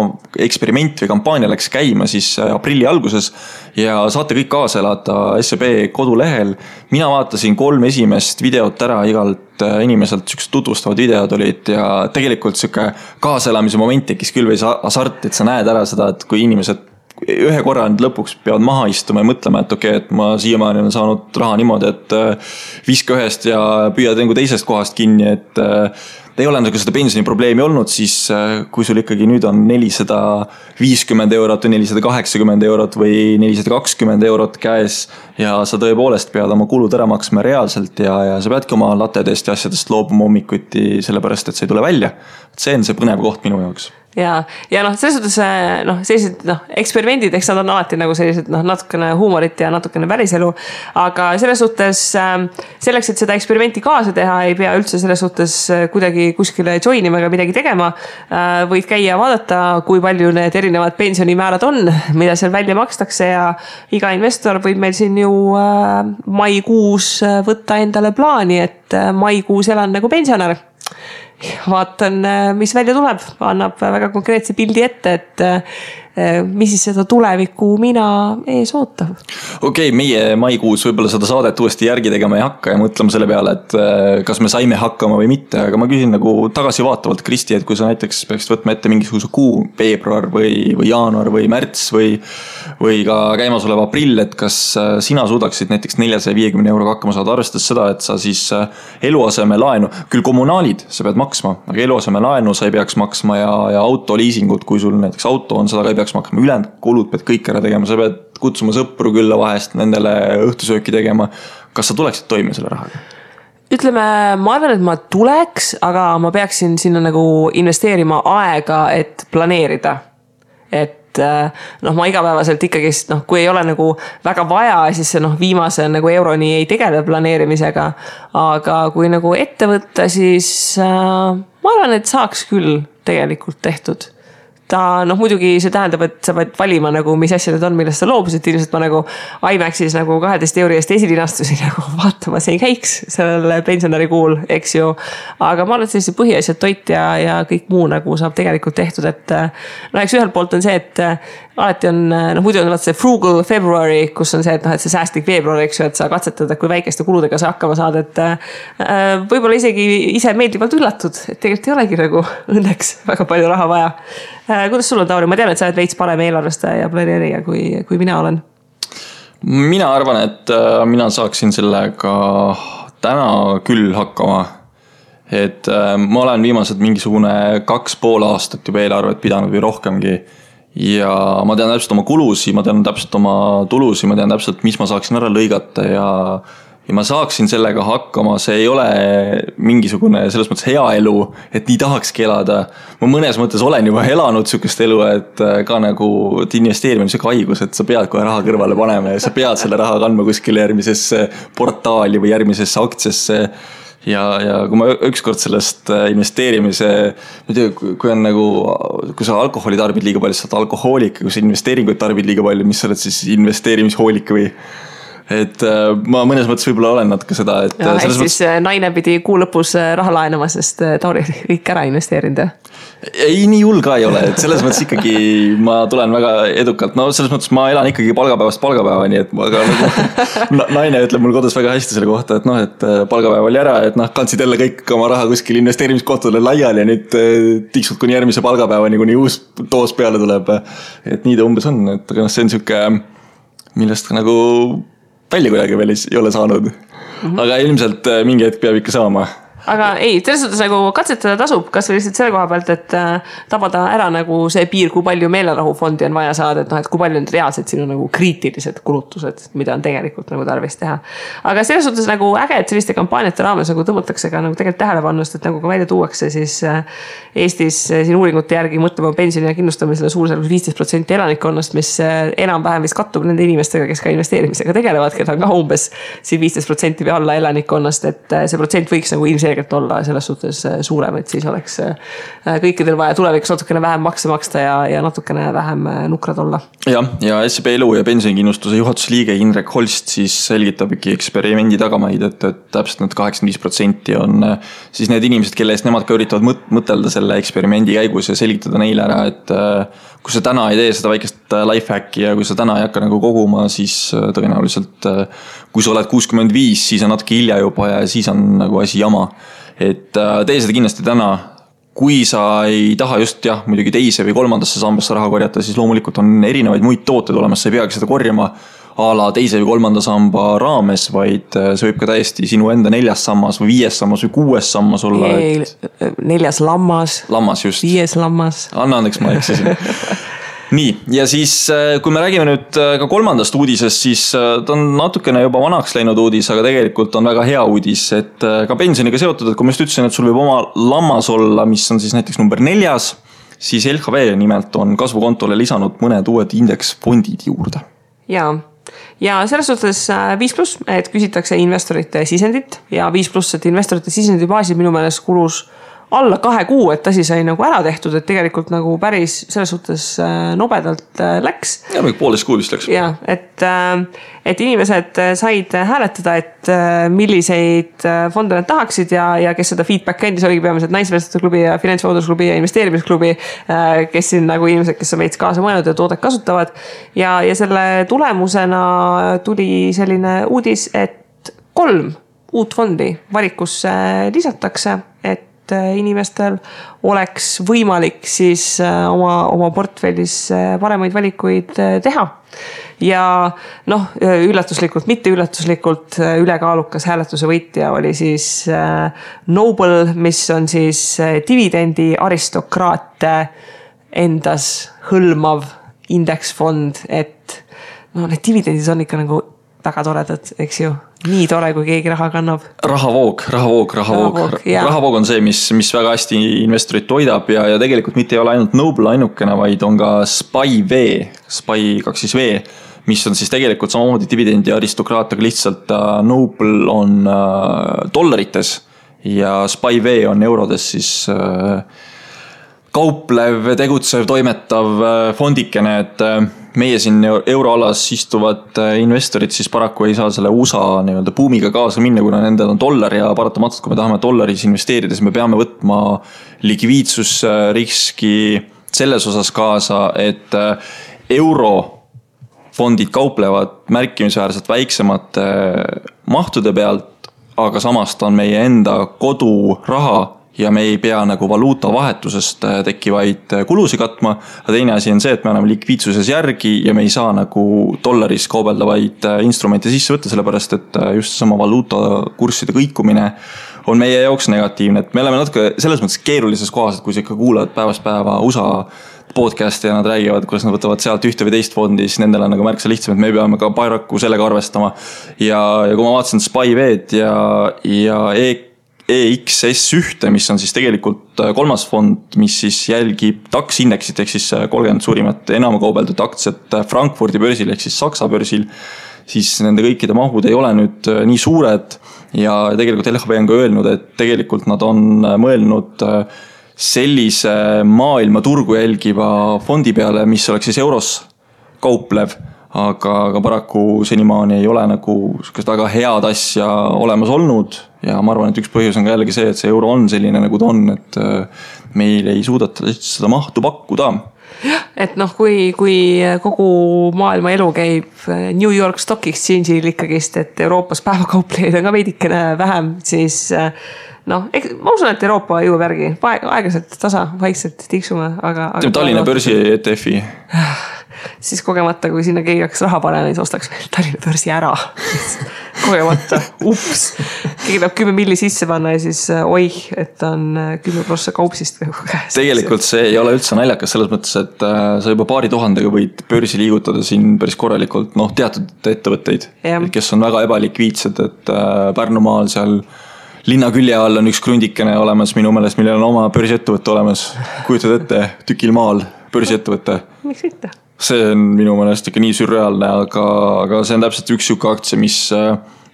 eksperiment või kampaania läks käima siis aprilli alguses ja saate kõik kaasa elada SEB kodulehel. Mina vaatasin 3 esimest videot ära igalt inimeselt, sükest tutvustavad videod olid ja tegelikult süke kaaselamise moment tekkis küll või hasart, et sa näed ära seda, et kui inimesed ühe korra lõpuks peavad maha istuma ja mõtlema, et okei, et ma siiamaani olen saanud raha niimoodi, et viska ühest ja püüad teisest kohast kinni, et ei ole nagu seda pensioni probleemi olnud, siis kui sul ikkagi nüüd on 450 eurot või 480 eurot või 420 eurot käes ja sa tõepoolest pead oma kulud ära maksma reaalselt ja sa peadki oma latedest ja asjadest loobuma hommikuti sellepärast, et see ei tule välja. See on see põnev koht minu jaoks. Ja noh, selles suhtes sellised eksperimendid, eks nad on alati nagu sellised natukene huumorit ja natukene päriselu, aga selles suhtes selleks, et seda eksperimenti kaasa teha, ei pea üldse selles suhtes kuidagi kuskile joinima ega midagi tegema. Võid käia vaadata, kui palju need erinevad pensionimäärad on, mida seal välja makstakse ja iga investor võib meil siin ju maikuus võtta endale plaani, et maikuus elan nagu pensionär. Vaatan, mis välja tuleb, annab väga konkreetse pildi ette, et mis siis seda tulevikku mina ees ootab. Okei, meie maikuus võib-olla seda saadet uuesti järgi tegema ei hakka ja mõtlema selle peale, et kas me saime hakkama või mitte, aga ma küsin nagu tagasivaatavalt, Kristi, et kui sa näiteks peaksid võtma ette mingisuguse kuu, veebruar või jaanuar või märts või ka käimasolev aprill, et kas sina suudaksid näiteks 450 euroga hakkama saada, arvestades seda, et sa siis eluaseme laenu, küll kommunaalid sa pead maksma, aga eluaseme laenu sa ei peaks maksma ja autoliisingud, kui sul näiteks auto on, seda ka ei peaks maksma, ülejäänud kulud pead kõik ära tegema, sa pead kutsuma sõpru külla vahest, nendele õhtusööki tegema. Kas sa tuleksid toime selle rahaga? Ütleme, ma arvan, et ma tuleks, aga ma peaksin sinna nagu investeerima aega, et planeerida. Et ma igapäevaselt ikkagi, kui ei ole nagu väga vaja, siis see viimase nagu euroni ei tegele planeerimisega. Aga kui nagu ette võtta, siis ma arvan, et saaks küll tegelikult tehtud. Ta muidugi see tähendab, et sa pead valima nagu, mis asja need on, millest sa loobusid. Ilmselt ma nagu IMAX-is nagu 12 euri eest esilinastusin nagu vaatama, see ei käiks sellele pensionäri kuul, eks ju. Aga ma arvan, et sellise põhiasjad toit ja kõik muu nagu saab tegelikult tehtud, et eks ühelt poolt on see, et alati on, muidu on see frugal February, kus on see, et see säästlik veebruar, eks ju, et sa katsetad, kui väikeste kuludega sa hakkama saad, et võib-olla isegi ise meeldivalt üllatud, et tegelikult ei olegi nagu õnneks väga palju raha vaja. Kuidas sul on, Tauri? Ma tean, et sa oled veits parem eelarvestaja ja planeerija kui mina olen. Mina arvan, et mina saaksin sellega täna küll hakkama. Et ma olen viimased mingisugune 2,5 aastat juba eelarvet pidanud või rohkemgi. Ja ma tean täpselt oma kulusi, ma tean täpselt oma tulusi, ma tean täpselt, mis ma saaksin ära lõigata ja ma saaksin sellega hakkama, see ei ole mingisugune selles mõttes hea elu, et nii tahakski elada. Ma mõnes mõttes olen juba elanud sükest elu, et ka nagu investeerimine on haigus, et sa pead kohe raha kõrvale panema ja sa pead selle raha kandma kuskile järgmisesse portaali või järgmisesse aktsiasse. Ja kui ma ükskord sellest investeerimise, kui on nagu, kui sa alkoholi tarbid liiga palju, sa oled alkohoolik, kui sa investeeringuid tarbid liiga palju, mis sa oled siis investeerimishoolik või? Et ma mõnes mõttes võib-olla olen natuke seda, et ja, siis naine pidi kuu lõpus raha laenama, sest Tauri kõik ära investeerinud. Ei, nii hull ka ei ole, et selles mõttes ikkagi ma tulen väga edukalt, selles mõttes ma elan ikkagi palgapäevast palgapäevani, et aga nagu, naine ütleb mul kodus väga hästi selle kohta, et palgapäev oli ära, et kandsid jälle kõik oma raha kuskil investeerimiskohtadele laiali ja nüüd tiksud kuni järgmise palgapäevani, kuni uus doos peale tuleb. Et nii ta umbes on, et aga see on siuke, millest nagu välja kuidagi veel ei ole saanud. Aga ilmselt mingi hetk peab ikka saama. Aga ei, selles suhtes nagu katsetada tasub, kas või lihtsalt selle koha pealt, et tabada ära nagu see piir, kui palju meelerahufondi on vaja saada, et kui palju on reaalselt sinu nagu kriitilised kulutused, mida on tegelikult nagu tarvis teha. Aga selles suhtes nagu äge, et selliste kampaaniate raames nagu tõmmatakse ka nagu tegelikult tähelepannust, et nagu ka välja tuuakse siis Eestis siin uuringute järgi mõtlema pensioni ja kindlustamisele suurusjärgus 15% elanikkonnast, mis enam-vähem vist kattub nende inimestega, kes ka investeerimisega tegelevad, keda on ka umbes siin 15% või alla elanikkonnast, et see protsent võiks nagu ilmselt tegelikult olla selles suhtes suurem, et siis oleks kõikidel vaja tulevikus natukene vähem makse maksta ja natukene vähem nukrad olla. Ja SEB elu ja pensionikindlustuse juhatuse liige Indrek Holst siis selgitab ikka eksperimendi tagamaid, et täpselt need 85% on siis need inimesed, kelle eest nemad ka üritavad mõtelda selle eksperimendi käigus ja selgitada neile ära, et kui sa täna ei tee seda väikest lifehacki ja kui sa täna ei hakka nagu koguma, siis tõenäoliselt kui sa oled 65, siis on natuke hilja juba ja siis on nagu asi jama. Et tee seda kindlasti täna. Kui sa ei taha just muidugi teise või kolmandasse sambasse raha korjata, siis loomulikult on erinevaid muid tooteid olemas, sa ei peagi seda korjama a la teise või kolmanda samba raames, vaid see võib ka täiesti sinu enda 4. sammas või 5. sammas või 6. sammas olla. 4. lammas. Lammas just. 5. lammas. Anna andeks, ma eksisin. Nii, ja siis kui me räägime nüüd ka kolmandast uudisest, siis ta on natukene juba vanaks läinud uudis, aga tegelikult on väga hea uudis, et ka pensioniga seotud, et kui ma just ütlesin, et sul võib oma lammas olla, mis on siis näiteks number 4, siis LHV nimelt on kasvukontole lisanud mõned uued indeksfondid juurde. Ja selles suhtes 5+, et küsitakse investorite sisendit ja 5+, et investorite sisendi baasil minu meelest kulus alla 2 kuu, et asi sai nagu ära tehtud, et tegelikult nagu päris selles suhtes nobedalt läks. Ja poolest kuud vist läks. Ja, et inimesed said hääletada, et milliseid fonde nad tahaksid ja kes seda feedback andis, oligi peamiselt naisvestluse klubi ja finantsvalutusklubi ja investeerimisklubi, kes siin nagu inimesed, kes on veits kaasa mõelnud ja toodet kasutavad. Ja selle tulemusena tuli selline uudis, et 3 uut fondi valikusse lisatakse, et inimestel oleks võimalik siis oma portfellis paremaid valikuid teha. Ja üllatuslikult, mitte üllatuslikult ülekaalukas hääletuse võitja oli siis Noble, mis on siis dividendi aristokraate endas hõlmav indeksfond, et need dividendid on ikka nagu väga toredad, eks ju. Nii tore, kui keegi raha kannab. Rahavoog. Rahavoog on see, mis väga hästi investorit toidab ja tegelikult mitte ei ole ainult Noble ainukene, vaid on ka SPY-V, SPY-2V, mis on siis tegelikult samamoodi dividendi aristokraat, aga lihtsalt Noble on dollarites ja SPY-V on eurodes siis kauplev, tegutsev, toimetav fondikene, et meie siin euroalas istuvad investorid siis paraku ei saa selle USA nii-öelda buumiga kaasa minna, kuna nendel on dollar ja paratamatult, kui me tahame dollaris investeerida, siis me peame võtma likviidsusriski selles osas kaasa, et eurofondid kauplevad märkimisväärselt väiksemate mahtude pealt, aga samast on meie enda koduraha ja me ei pea nagu valuuta vahetusest tekkivaid kulusi katma. Aga teine asi on see, et me anname likviidsuses järgi ja me ei saa nagu dollaris kaubeldavaid instrumente sisse võtta, sellepärast et just sama valuuta kursside kõikumine on meie jaoks negatiivne. Et me oleme natuke selles mõttes keerulises kohas, et kui sa ikka kuulad päevast päeva USA podcasti ja nad räägivad, kuidas nad võtavad sealt ühte või teist fondi, siis nendel on nagu märksa lihtsam, et me peame ka Bayraku sellega arvestama. Ja kui ma vaatasin SPY-V-d ja EXS1, mis on siis tegelikult 3. fond, mis siis jälgib DAX indeksit, ehk siis 30 suurimat enam kaubeldud aktsiat Frankfurdi börsil, ehk siis Saksa börsil, siis nende kõikide mahud ei ole nüüd nii suured ja tegelikult LHV on ka öelnud, et tegelikult nad on mõelnud sellise maailma turgu jälgiva fondi peale, mis oleks siis euros kauplev, aga paraku senimaani ei ole nagu väga head asja olemas olnud ja ma arvan, et üks põhjus on ka jällegi see, et see euro on selline nagu ta on, et meil ei suudeta seda mahtu pakkuda. Et kui kogu maailma elu käib New York Stock Exchange'il ikkagist, et Euroopas päevakauplejaid on ka veidikene vähem, siis ma usun, et Euroopa jõuab järgi. Aeglaselt tasa, vaikselt tiksume, aga Tallinna börsi ETF-i. Siis kogemata, kui sinna keegi hakkaks raha panema, siis ostaks meil Tallinna börsi ära. Kogemata, ups. Keegi peab 10 milli sisse panna ja siis et on 10% kaupsist. Tegelikult see ei ole üldse naljakas selles mõttes, et sa juba 2000 võid börsi liigutada siin päris korralikult teatud ettevõtteid, kes on väga ebalikviidsed, et Pärnumaal seal linna külje all on üks krundikene olemas minu meelest, millel on oma börsiettevõtte olemas. Kujutad ette, tükil maal börsiettevõtte. Miks mitte? See on minu meelest ikka nii sürreaalne, aga see on täpselt üks siuke aktsia, mis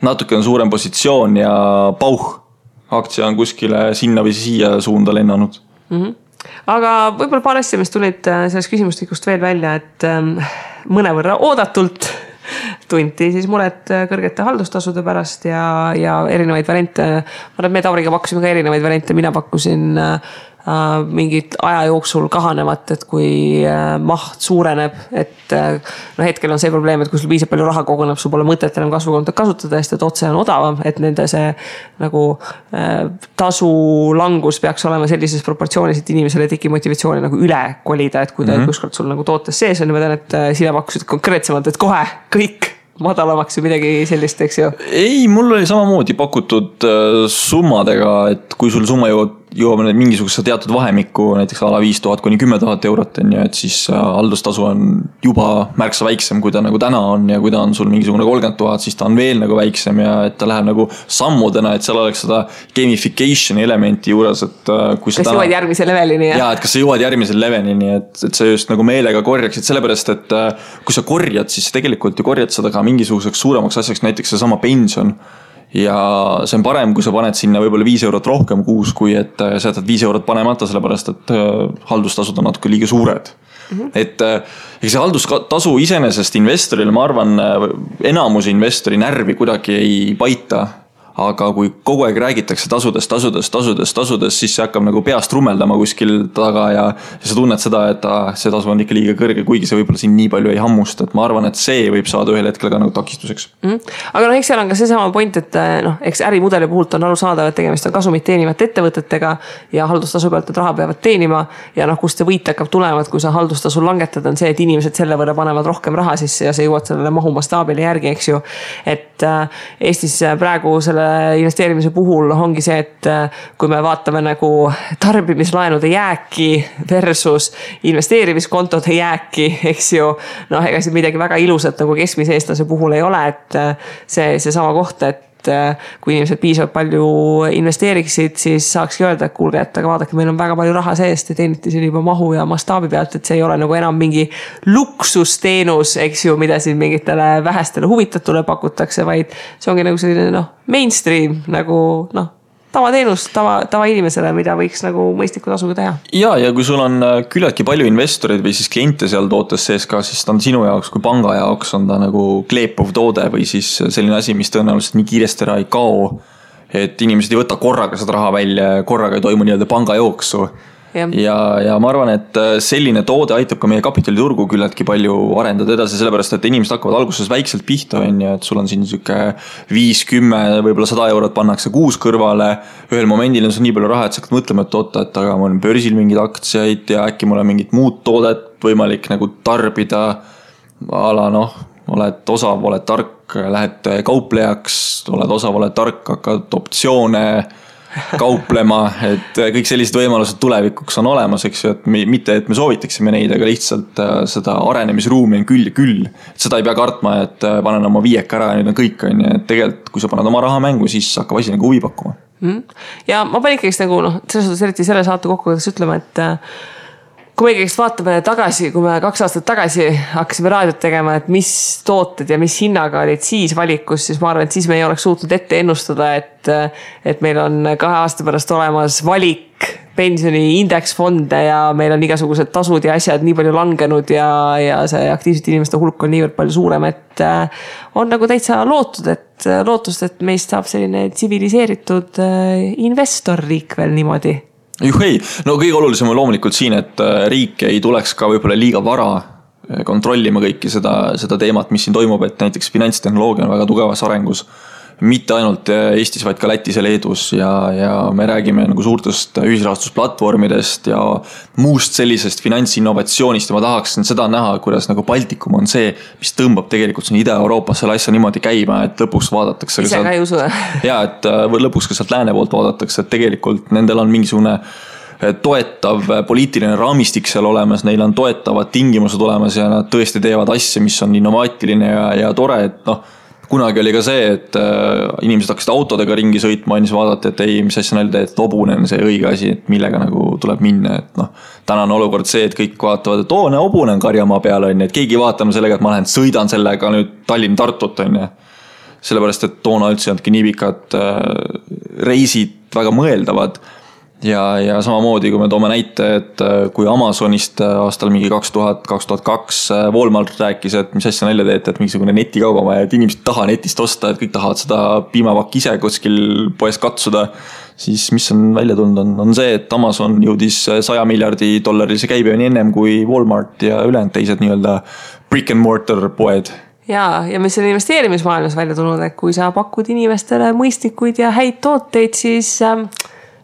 natuke on suurem positsioon ja pauh. aktsia on kuskile sinna või siia suunda lennanud. Aga võib-olla paar asja, mis tulid sellest küsimustikust veel välja, et mõnevõrra oodatult tunti siis muret kõrgete haldustasude pärast ja erinevaid variante. Ma arvan, et me Tauriga pakkusime ka erinevaid variante, mina pakkusin mingit aja jooksul kahanevat, et kui maht suureneb, et hetkel on see probleem, et kui sul piisab palju raha koguneb, sul pole mõtet enam kasvukontot kasutada, sest et otse on odavam, et nende see nagu tasu langus peaks olema sellises proportsioonis, et inimesele teki motivatsiooni nagu üle kolida, et kui ta kuskord sul nagu tootes sees on, ma tean, et sina pakkusid konkreetsemalt, et kohe kõik madalamaks või midagi sellist, eks ju? Ei, mul oli samamoodi pakutud summadega, et kui sul summa jõuab mingisuguse teatud vahemikku, näiteks ala 5000 kuni 10 000 eurot, et siis haldustasu on juba märksa väiksem, kui ta nagu täna on ja kui ta on sul mingisugune 30 000, siis ta on veel nagu väiksem ja et ta läheb nagu sammudena, et seal oleks seda gamification elementi juures, et kui kas jõuad järgmise levelini? Ja, et kas sa jõuad järgmise levelini, et sa just nagu meelega korjaksid, sellepärast, et kui sa korjad, siis tegelikult ju korjad seda ka mingisuguseks suuremaks asjaks, näiteks see sama pension. Ja see on parem, kui sa paned sinna võib-olla 5 eurot rohkem kuus, kui et sa jätad 5 eurot panemata, sellepärast, et haldustasud on natuke liiga suured. Et see haldustasu iseenesest investoril, ma arvan, enamus investori närvi kuidagi ei paita. Aga kui kogu aeg räägitakse tasudest, siis see hakkab nagu peast rummeldama kuskil taga ja sa tunned seda, et see tasu on ikka liiga kõrge, kuigi see võib-olla siin nii palju ei hammust, et ma arvan, et see võib saada ühel hetkel ka nagu takistuseks. Aga eks seal on ka see sama point, et eks ärimudeli puhult on aru saada, et tegemist on kasumit teenivate ettevõtetega ja haldustasu pealt, et raha peavad teenima ja kust see võit hakkab tulema, et kui sa haldustasu langetad, on see, et inimesed selle võrra panevad rohkem raha sisse ja sa jõuad sellele mahumastaabile järgi, eks ju. Et Eestis praegu selle investeerimise puhul ongi see, et kui me vaatame nagu tarbimislaenude jääki versus investeerimiskontode jääki, eks ju, ega see midagi väga ilusat nagu keskmise eestlase puhul ei ole, et see sama koht, et kui inimesed piisavalt palju investeeriksid, siis saakski öelda, et kuulge, et aga vaadake, meil on väga palju raha seest ja teeniti siin juba mahu ja mastaabi pealt, et see ei ole nagu enam mingi luksusteenus, eks ju, mida siin mingitele vähestele huvitatule pakutakse, vaid see ongi nagu selline mainstream nagu tavateenus tava inimesele, mida võiks nagu mõistliku tasuga teha. Ja kui sul on küllaltki palju investoreid või siis kliente seal tootes sees ka, siis ta on sinu jaoks kui panga jaoks on ta nagu kleepuv toode või siis selline asi, mis tõenäoliselt nii kiiresti ära ei kao, et inimesed ei võta korraga seda raha välja, korraga ei toimu nii-öelda panga jooksu. Ja ma arvan, et selline toode aitab ka meie kapitaliturgu küllaltki palju arendada edasi, sellepärast, et inimesed hakkavad alguses väikselt pihta, et sul on siin siuke 5-10, võib-olla 100 eurot pannakse kuus kõrvale. Ühel momendil on see nii palju raha, et sa hakkad mõtlema, et oota, et aga mul on börsil mingid aktsiaid ja äkki mul on mingit muud toodet võimalik nagu tarbida. Ala oled osav, oled tark, lähed kauplejaks, oled osav, oled tark, hakkad optsioone kauplema, et kõik sellised võimalused tulevikuks on olemas, eks ju, et mitte, et me soovitaksime neid, aga lihtsalt seda arenemisruumi on küll ja küll. Seda ei pea kartma, et panen oma 5 ära ja nüüd on kõik, et tegelikult, kui sa paned oma raha mängu, siis hakkab asi nagu huvi pakkuma. Ja ma panin ikkagi nagu, selles suhtes eriti selle saate kokku, kuidas ütlema, et kui me ikkagi vaatame tagasi, kui me 2 aastat tagasi hakkasime raadiot tegema, et mis tooted ja mis hinnaga olid siis valikus, siis ma arvan, et siis me ei oleks suutnud ette ennustada, et meil on 2 aasta pärast olemas valik pensioni indeksfonde ja meil on igasugused tasud ja asjad nii palju langenud ja see aktiivsete inimeste hulk on niivõrd palju suurem, et on nagu täitsa lootust, et meist saab selline tsiviliseeritud investorriik veel niimoodi. Juhei, kõige olulisem on loomulikult siin, et riik ei tuleks ka võib-olla liiga vara kontrollima kõiki seda teemat, mis siin toimub, et näiteks finantstehnoloogia on väga tugevas arengus. Mitte ainult Eestis, vaid ka Lätis ja Leedus ja me räägime nagu suurtest ühisrahastusplatvormidest ja muust sellisest finantsinnovatsioonist ja ma tahaksin seda näha, kuidas nagu Baltikum on see, mis tõmbab tegelikult siin Ida-Euroopas selle asja niimoodi käima, et lõpuks vaadatakse ise ka ei usu. Ja, et lõpuks ka sealt lääne poolt vaadatakse, et tegelikult nendel on mingisugune toetav poliitiline raamistik seal olemas, neil on toetavad tingimused olemas ja nad tõesti teevad asja, mis on innovaatiline ja tore, et kunagi oli ka see, et inimesed hakkasid autodega ringi sõitma ja siis vaadati, et ei, mis asja näilda, et hobune on see õige asi, et millega nagu tuleb minna, et täna on olukord see, et kõik vaatavad, et hobune on karjamaa peal, et keegi vaatame sellega, et ma lähen sõidan sellega nüüd Tallinn-Tartut, sellepärast, et toona üldse ei olnudki nii pikad reisid väga mõeldavad. Ja samamoodi, kui me toome näite, et kui Amazonist aastal mingi 2002 Walmart rääkis, et mis asja nalja teete, et mingisugune netikauba, et inimesed taha netist osta, et kõik tahavad seda piimapakk ise kuskil poes katsuda, siis mis on välja tulnud on see, et Amazon jõudis $100 miljardi käibeni ennem kui Walmart ja ülejäänud teised nii-öelda brick and mortar poed. Ja mis on investeerimismaailmas välja tulnud, et kui sa pakud inimestele mõistlikuid ja häid tooteid, siis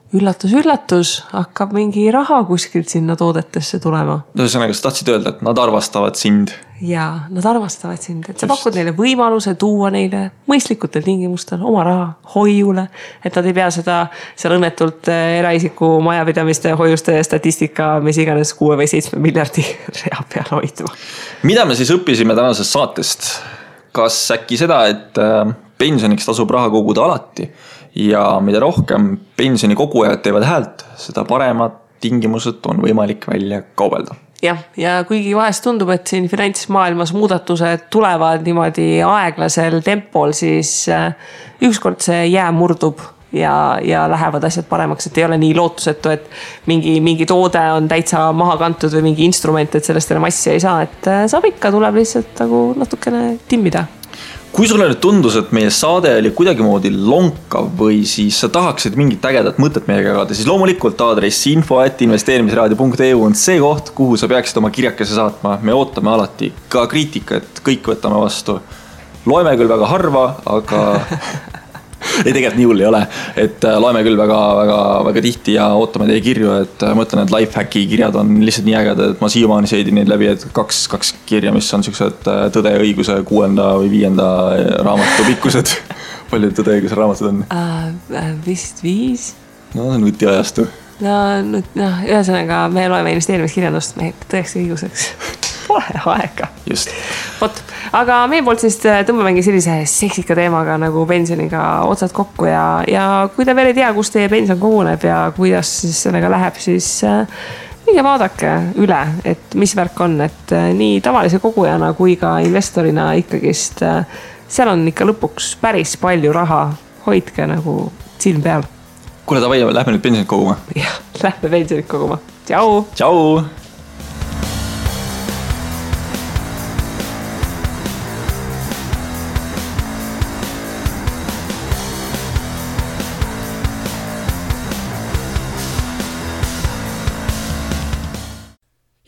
üllatus, hakkab mingi raha kuskilt sinna toodetesse tulema. Ühesõnaga, sa tahtsid öelda, et nad arvastavad sind. Ja nad arvastavad sind, et sa pakud neile võimaluse tuua neile mõistlikutel tingimustel oma raha hoiule, et nad ei pea seda seal õnnetult eraisiku majapidamiste hoiuste statistika, mis iganes 6 või 7 miljardi rea peal hoidma. Mida me siis õppisime tänasest saatest? Kas äkki seda, et pensioniks tasub raha koguda alati ja mida rohkem pensioni kogujad teevad häält, seda paremad tingimused on võimalik välja kaubelda. Ja kuigi vahest tundub, et siin finantsmaailmas muudatused tulevad niimoodi aeglasel tempol, siis ükskord see jää murdub ja lähevad asjad paremaks, et ei ole nii lootusetu, et mingi toode on täitsa maha kantud või mingi instrument, et sellest enam asja ei saa, et saab ikka, tuleb lihtsalt nagu natukene timmida. Kui sulle nüüd tundus, et meie saade oli kuidagimoodi lonkav või siis sa tahaksid mingit ägedat mõtet meiega jagada, siis loomulikult aadress info@investeerimisraadio.eu on see koht, kuhu sa peaksid oma kirjakese saatma. Me ootame alati ka kriitikat, kõik võtame vastu. Loeme küll väga harva, aga ei, tegelikult nii hull ei ole, et loeme küll väga tihti ja ootame teie kirju, et mõtlen, et lifehacki kirjad on lihtsalt nii ägedad, et ma siiamaani seedin neid läbi, et kaks kirja, mis on sellised Tõde ja õiguse 6. või 5. raamatu pikkused. Palju Tõde ja õiguse raamatud on? Vist 5. No nutiajastu. Ühesõnaga me loeme investeerimiskirjandust mehed tõeks ja õiguseks. Pole aega. Just. Aga meie poolt siis tõmbamegi sellise seksika teemaga nagu pensioniga otsad kokku ja kui te veel ei tea, kus teie pension koguneb ja kuidas siis sellega läheb, siis minge vaadake üle, et mis värk on, et nii tavalise kogujana kui ka investorina ikkagist seal on ikka lõpuks päris palju raha, hoidke nagu silm peal. Kuule, davai, lähme nüüd pensionit koguma. Jah, lähme pensionit koguma. Tšau! Tšau!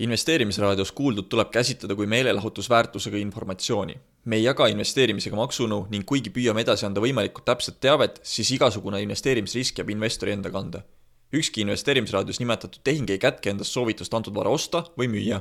Investeerimisraadios kuuldud tuleb käsitleda kui meelelahutusväärtusega informatsiooni. Me ei jaga investeerimisega maksunõu ning kuigi püüame edasi anda võimalikult täpset teavet, siis igasugune investeerimisrisk jääb investori enda kanda. Ükski investeerimisraadios nimetatud tehing ei kätke endast soovitust antud vara osta või müüa.